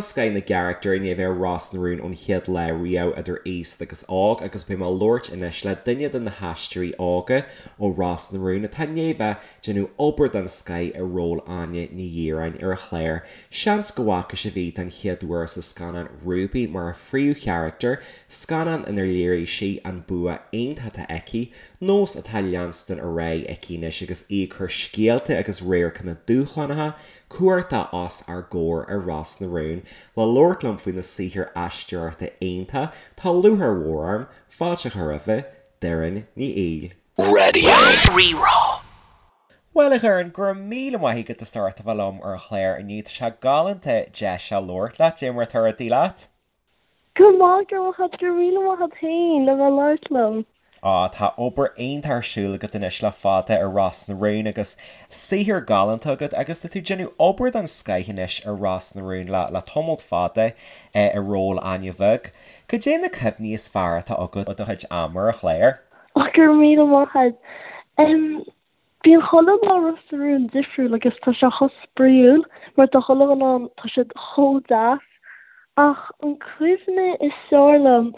Tá scoith na gcarachtar i ndiaidh a bheith ar Ros na Rún ón chéad lá riamh, idir aosta agus óg, agus beidh mé ag labhairt anois le duine de na haisteoirí óga ó Ros na Rún atá i ndiaidh a bheith ag déanamh obair den scoith i ról Áine Ní Dhireáin ar an chlár. Seans go bhfaca sibh í den chéad uair sa scannán Ruby mar a phríomhcharachtar, scannán inar léirigh sí an bua iontach atá aici, nós atá á leanstan ar aghaidh aici anois agus í ag cur scéalta agus radharcanna dúshlánacha cumhachtacha os ár gcomhair ar Ros na Rún. Le labhairt liom faoina saothar aisteoireachta iontach, tá lúcháir mhór orm fáilte a chur roimhe, Doireann Ní Fhoighil. Radio Rí-Rá. Bhuel, a Dhoireann, go raibh míle maith agat as ucht a bheith liom ar an chlár inniu. Tá sé galánta deis a labhairt leat. Cad é mar atá rudaí leat? Go maith, go raibh maith agat, go raibh míle maith agat féin le bheith ag labhairt liom. Á, tá obair iontach ar siúl agat anois le fada ar Ros na Rún agus saothar galánta agat agus tá tú ag déanamh obair den scoith anois ar Ros na Rún le le tamalt fada i ról Áine Bheag. Cad é na cuimhní is fearr atá agat ó do chuid ama ar an chlár? Á, go raibh míle maith agat. Bíonn chuile lá Ros na Rún difriúil agus tá sé chomh spraíúil mar tá chuile dhuine ann, tá siad chomh deas. Ach an cuimhne is fearr liom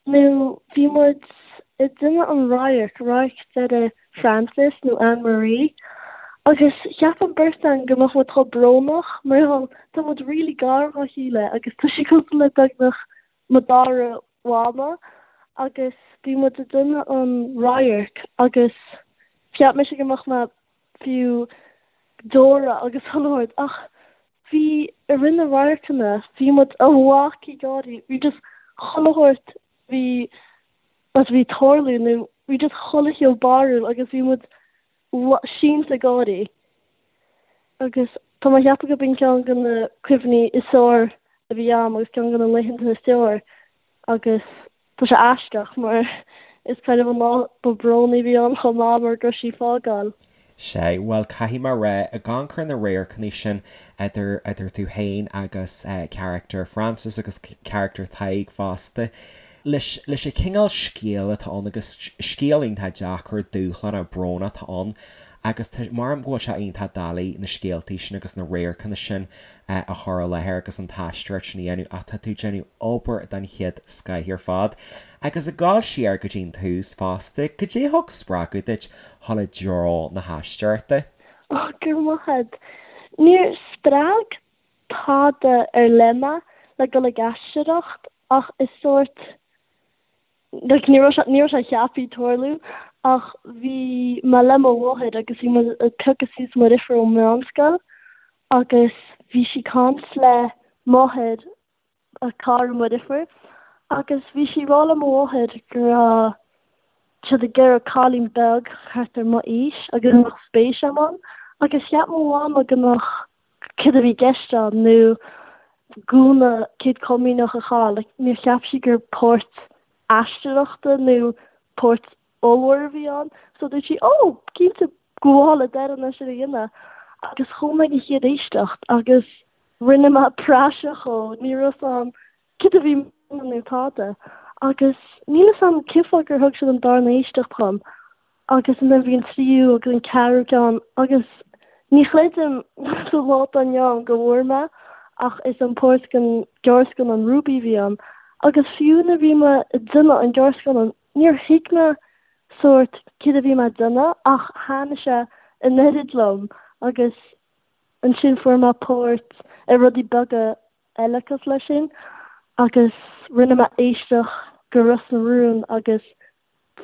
nó bhí muid ag déanamh an radharc, radharc deiridh Frances nó Anne Marie agus cheap an beirt againn go mbeadh muid chomh brónach mar gheall tá muid really gar dhá chéile agus tá sí cosúil le beagnach mo dara mhama agus bhí muid ag déanamh an radharc agus cheap mise go mbeadh mé fiú deora agus chuile shórt ach bhí i rith na radharcanna bhí muid amach ag gáirí bhí just chuile shórt bhí bhí ag tarlú nó bhí just chuile chineál barrúil agus bhí muid sínte ag gáirí agus tá mé ag ceapadh go b'in ceann de na cuimhní is fearr a bhí a'm agus ceann de na laethanta is fearr agus tá sé aisteach mar is kind of an lá ba brónaí a bhí ann chomh maith mar go raibh sí ag fágáil. Sea, bhuel caithfidh mé a rá, ag amharc ar na radharcanna sin idir, idir tú féin agus charachtar Frances agus charachtar Thaidhg fosta, leis, leis an chineál scéal atá ann agus scéal iontach deacair, dúshlánach, brónach atá ann agus tá, maram go bhfuil sé iontach doiligh na scéaltaí sin agus na radharcanna sin a chur i láthair agus an t-aisteoireacht sin a dhéanamh ach tá tú ag déanamh obair den chéad scoith ar fad. Agus ag gabháil siar go dtí an tús fosta, cad é a thug spreagadh duit dhul i dtreo na haisteoireachta? Ó, go raibh maith agat. Níor spreag tada ar leith mé le dul ag aisteoireacht ach is sórt like ní raibh sé ní raibh sé ceaptha tarlú ach bhí mé le mo mháthair agus bhí muid ag piocadh suas mo dheirfiúr ón meánscoil agus bhí sí ag caint le máthair a cara mo dheirfiúr agus bhí sí ag rá le mo mháthair go raibh siad ag iarraidh cailín beag thart ar mo aois agus go mbeadh spéis agam ann agus cheap mo mhama go mbeadh céard a bhí i gceist ann nó gúna céad comaoineach a chaitheamh like níor cheap sí gur páirt aisteoireachta nó páirt ollmhór a bhí ann so dúirt sí oh cinnte gabháil le Doireann é sin a dhéanamh agus chuaigh mé ag an chéad éisteacht agus rinne mé praiseach dhó ní raibh fhios a'm céard a bhí nó tada agus níl fhios a'm cén fáth gur thug siad an darna éisteacht dhom agus ansin bhí an tríú agus an ceathrú ceann agus ní chreidim sa lá atá inniu ann go bhfuair mé ach is an páirt den gearrscannán Ruby a bhí ann agus fiú nuair a bhí mé ag déanamh an gearrscannán níor thuig mé sórt céard a bhí mé ag déanamh ach thaitnigh sé an oiread liom agus ansin fuair mé páirt i rudaí beaga eile cosúil leis sin agus rinne mé éisteacht go Ros na Rún agus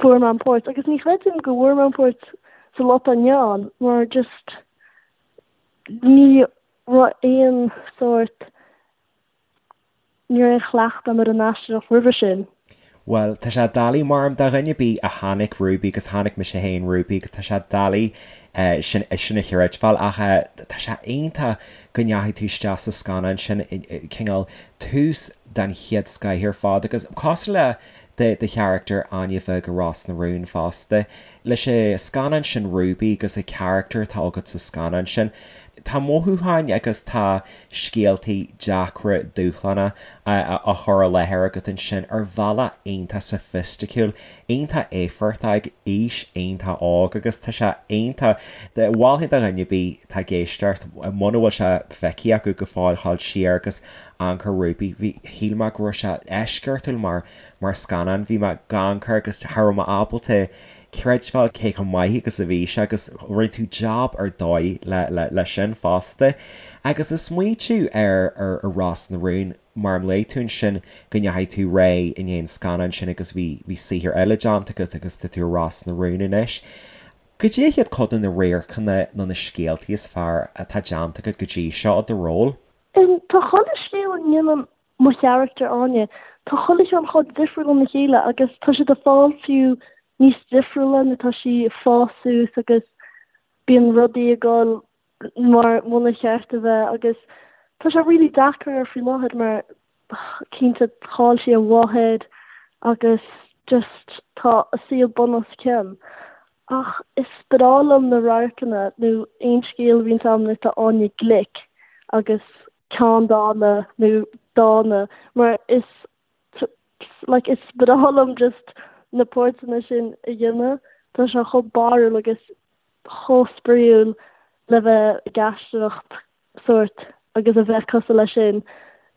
fuair mé an páirt agus ní chreidim go bhfuair mé an páirt sa lá atá inniu ann mar just ní raibh aon sórt ní raibh aon chleachtadh agam ar an aisteoireacht roimhe sin. Bhuel, tá sé doiligh maram do dhuine ar bith a chonaic Ruby agus chonaic mise féin Ruby agus tá sé doiligh sin sin a chreidbheáil ach tá sé iontach go ndeachaigh tú isteach sa scannán sin cineál tús den chéad scoith ar fad agus cosúil le do do charachtar Áine Bheag i Ros na Rún fosta. Leis an scannán sin Ruby agus an charachtar atá agat sa scannán sin. Tá mothúcháin agus tá scéaltaí deacra dúshlánacha á chur i láthair agat ansin ar bhealach iontach soifisticiúil, iontach éifeachtach ag aois iontach óg agus tá sé iontach. Mholfainn do dhuine ar bith atá ag éisteacht, muna bhfuil sé feicthe acu go fóill, ghabháil siar agus amharc ar Ruby. Bhí, shíl mé go raibh sé eisceachtúil mar, mar scannán. Bhí mé ag amharc air agus cha raibh mé ábalta creidbheáil cé chomh maith agus a bhí sé agus rinne tú jab ar dóigh le sin fosta. Agus ag smaoitiú ar ar Ros na Rún, mar luaigh tú ansin go ndeachaigh tú ar aghaidh i ndiaidh an scannáin sin agus bhí bhí saothar eile déanta agat agus tá tú i Ros na Rún anois. Goidé hiad cuid de na radharcanna nó na scéaltaí is fearr atá déanta agat go dtí seo i do ról? Tá chuile scéal a ndéanann mo charachtar Áine. Tá chuile cheann chomh difriúil óna chéile agus tá siad ag fáil fiú níos difriúla nuair atá sí ag fás suas agus bíonn rudaí ag dul mar muna cheart a bheith agus tá sé really deacair faoi láthair mar cinnte chaill sí a mháthair agus just tá a saol bun os cionn. Ach is breá liom na radharcanna nó aon scéal a bhíonns agam nuair atá Áine glic agus ceanndána nó dána mar is like is breá liom just na páirteanna sin a dhéanamh. Tá sé chomh barrúil agus chomh spraíúil le bheith ag aisteoireacht sórt agus a bheith cosúil leis sin.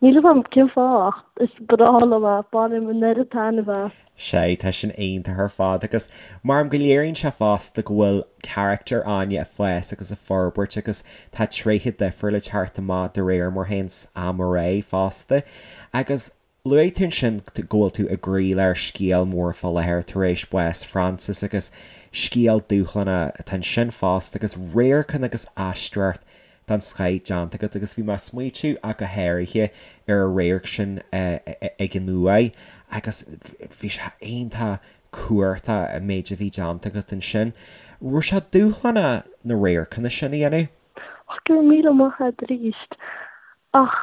Níl 'fhios a'm cén fáth ach is breá liom é, bainim an oiread taitneamh as. Sea, tá sin iontach ar fad agus maram go léiríonn sé fosta go bhfuil carachtar Áine ag fás agus ag forbairt agus tá tréithe difriúla ag teacht amach de réir mar théanns am ar aghaidh fosta. Agus luaigh tú ansin go bhfuil tú i gcroílár scéal mór fá láthair tar éis bás Frances agus scéal dúshlánach atá ansin fosta agus radharcanna agus aisteoireacht den scoith déanta agat agus bhí mé ag smaoitiú ach go háirithe ar an radharc sin ag an uaigh agus bhí sé iontach cumhachtach an méid a bhí déanta agat ansin. Raibh sé dúshlánach na radharcanna sin a dhéanamh? Ach go raibh míle maith agat arís. Ach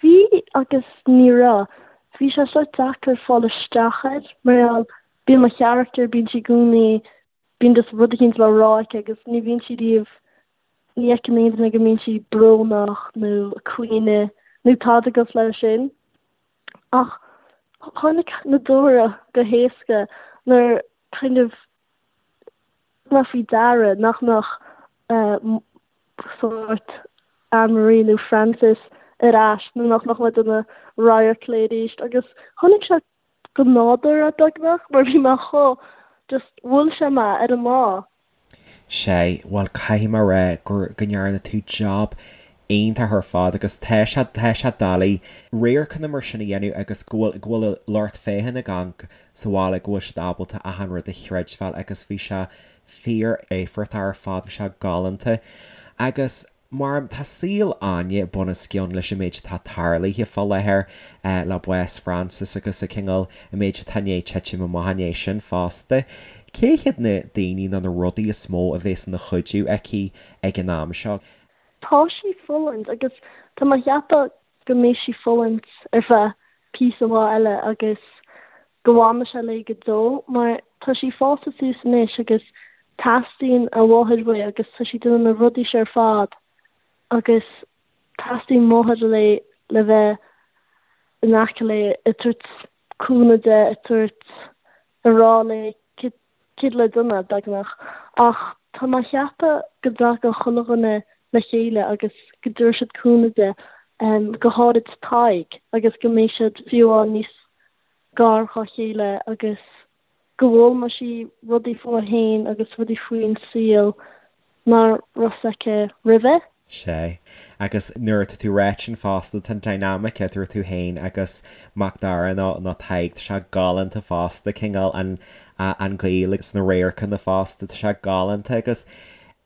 bhí agus ní raibh. Bhí sé sórt deacair fáil isteach air mar gheall bíonn mo charachtar, bíonn sí i gcónaí, bíonn just rud eicínt le rá aici agus ní bhíonn sí riamh Ní fheiceann aon duine go mbíonn sí brónach nó ag caoineadh nó tada cosúil leis sin. Ach tháinig na deora go héasca nuair kind of thug mé faoi deara nach mbeadh sórt Anne-Marie nó Frances ar ais nó nach mbeadh mé ag déanamh radharc léi arís agus tháinig sé go nádúrtha beagnach mar bhí mé chomh just bhuail sé mé ar an lá. Sea, bhuel caithfidh mé a rá gur, go ndearna tú jab iontach ar fad agus tá sé, tá sé doiligh radharcanna mar sin a dhéanamh agus go bhfuil, go bhfuil lucht féachana ag amharc sa bhaile go bhfuil siad ábalta achan rud a chreidbheáil agus bhí sé fíor éifeachtach ar fad, bhí sé galánta agus. Mar tá saol Áine bunoscionn leis an méid atá tarlaithe fá láthair le bás Frances agus a cineál an méid atá i ndiaidh titim amach i ndiaidh sin fosta. Cé hiad na daoine nó na rudaí is mó a bhéas ina cuidiú aici ag an am seo? Tá sí ag fulaingt agus tá mé ag ceapadh go mbeidh sí ag fulaingt ar feadh píosa mhaith eile agus go bhfanfaidh sé léi go deo mar tá sí fásta suas anois agus teastaíonn a mháthair uaithi agus tá sí ag déanamh na rudaí seo ar fad agus teastaíonn máthair léi le bheith in aice léi ag tabhairt cúnamh di, ag tabhairt, ag rá léi céard le déanamh, beagnach. Ach tá mé ag ceapadh go dtagann chuile dhuine le chéile agus go dtabharfaidh siad cúnamh di, go háirid Tadhg, agus go mbeidh siad fiú amháin níos gar dhá chéile agus go bhfoghlaimeoidh sí rudaí fúithi féin agus rudaí faoin saol nach raibh fhios aici roimhe. Sea. Agus nuair atá tú ag ráit sin fosta, tá an dynamic idir tú féin agus Mac Dara nó nó Tadhg, tá sé galánta fosta, cineál an an gaol agus na radharcanna fosta, tá sé galánta agus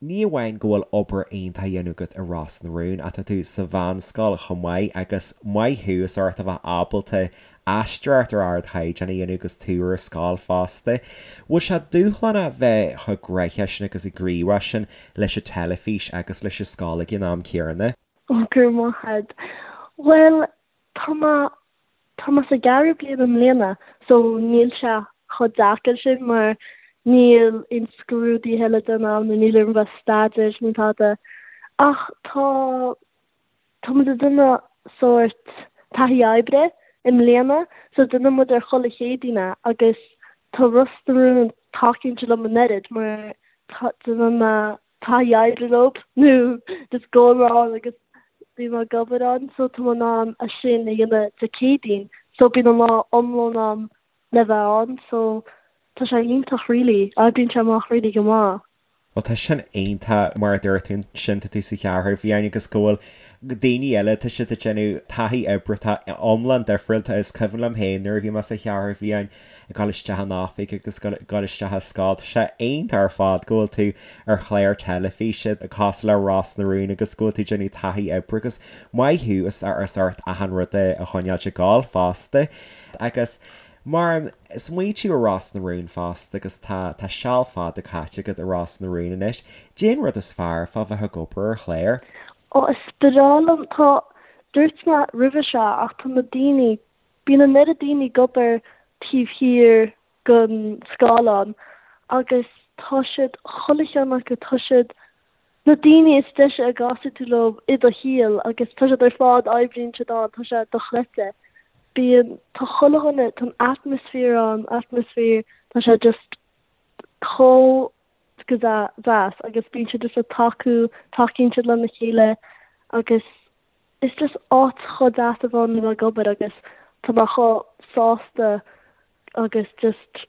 ní amháin go bhfuil obair iontach á dhéanamh agat i Ros na Rún ach tá tú sa mheánscoil chomh maith agus maith thú as ucht a bheith ábalta aisteoireacht ar ardchaighdeán a dhéanamh agus tú ar scoil fosta. Bhfuil sé dúshlánach bheith chomh gnoitheach sin agus gníomhach sin leis an teilifís agus leis an scoil ag an am céanna? Ó, go raibh maith agat. Bhuel, tá mé, tá mé sa gceathrú bliain i mbliana so níl sé chomh deacair sin mar níl aon scrúduithe le déanamh nó níl orm bheith ag staidéar nó tada. Ach tá, tá muid ag déanamh sórt taithí oibre i mbliana so déanann muid ar chuile Chéadaoin é agus tá Ros na Rún tacaíonn siad liom an oiread mar tá, déanann mé taithí oibre leo nó just gabhaim ann agus bím ag obair ann so tá mé in ann é sin a dhéanamh Dé Céadaoin so bíonn an lá iomlán a'm le bheith ann so tá sé iontach really, oibríonn sé amach really go maith. Bhuel tá sin iontach mar a dúirt tú ansin tá tú sa Cheathrú Fhiáin agus go bhfuil daoine eile tá siad ag déanamh taithí oibre atá iomlán difriúil is cuimhin liom féin nuair a bhí mé sa Cheathrú Fhiáin ag dul isteach in oifig agus ag dul isteach i scoil. Tá sé iontach ar fad go bhfuil tú ar chlár teilifíse cosúil le Ros na Rún agus go bhfuil tú ag déanamh taithí oibre agus maith thú as ucht achan rud a choinneáilt ag gabháil fosta. Agus mar smaointiú ar Ros na Rún fosta agus tá tá seal fada caite agat i Ros na Rún anois, caidé an rud is fearr fá bheith ag obair ar chlár? Ó is breá liom, tá, dúirt mé roimhe seo ach tá na daoine Bíonn an oiread daoine ag obair taobh thiar den scáileán agus tá siad, chuile cheann acu, tá siad na daoine is deise a gcasfaidh tú leo i do shaol agus tá siad ar fad, oibríonn siad ann, tá sé dochreidte. Bíonn, tá chuile dhuine, tá an atmaisféar ann, atmaisféar, tá sé just chomh go deas agus bíonn siad just ag tacú, tacaíonn siad lena chéile agus Is just áit chomh deas a bheith ann le bheith ag obair agus tá mé chomh sásta agus just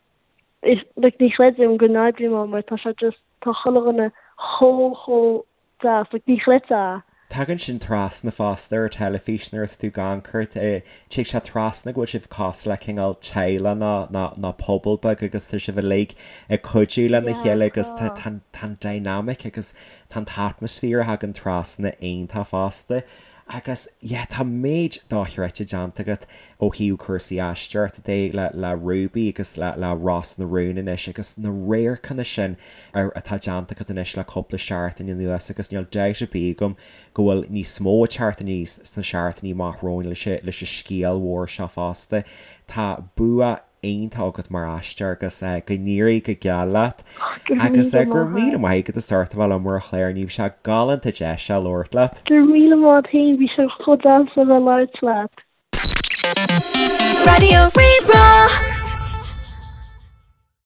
is like ní chreidim go n-oibrím ann mar tá sé just tá chuile dhuine chomh chomh deas like ní chreidfeá é. Tagann sin trasna fosta ar teilifís nuair atá tú ag amharc air, tig sé trasna go bhfuil sibh cosúil le cineál teaghlach nó nó nó pobal beag agus tá sibh uilig ag cuidiú lena Yeah chéile agus tá tá. tá tá an dynamic agus Tá an t-atmaisféar a thagann trasna iontach fosta agus yeah tá méid dochreidte déanta agat ó thaobh cúrsaí aisteoireachta de le le Ruby agus le le Ros na Rún anois agus na radharcanna sin ar atá déanta agat anois le cúpla seachtain anuas agus níl dabht ar bith agam go bhfuil níos mó ag teacht aníos sna seachtainí amach romhainn leis leis an scéal mhór seo fosta. Tá bua iontach agat mar aisteoir agus go n-éirí go geal leat agus go raibh míle maith agat as ucht a bheith liom ar an chlár inniu, bhí sé galánta deis a labhairt leat. Go raibh míle maith agat féin, bhí sé chomh deas a bheith ag labhairt leat. Raidió Rí-Rá.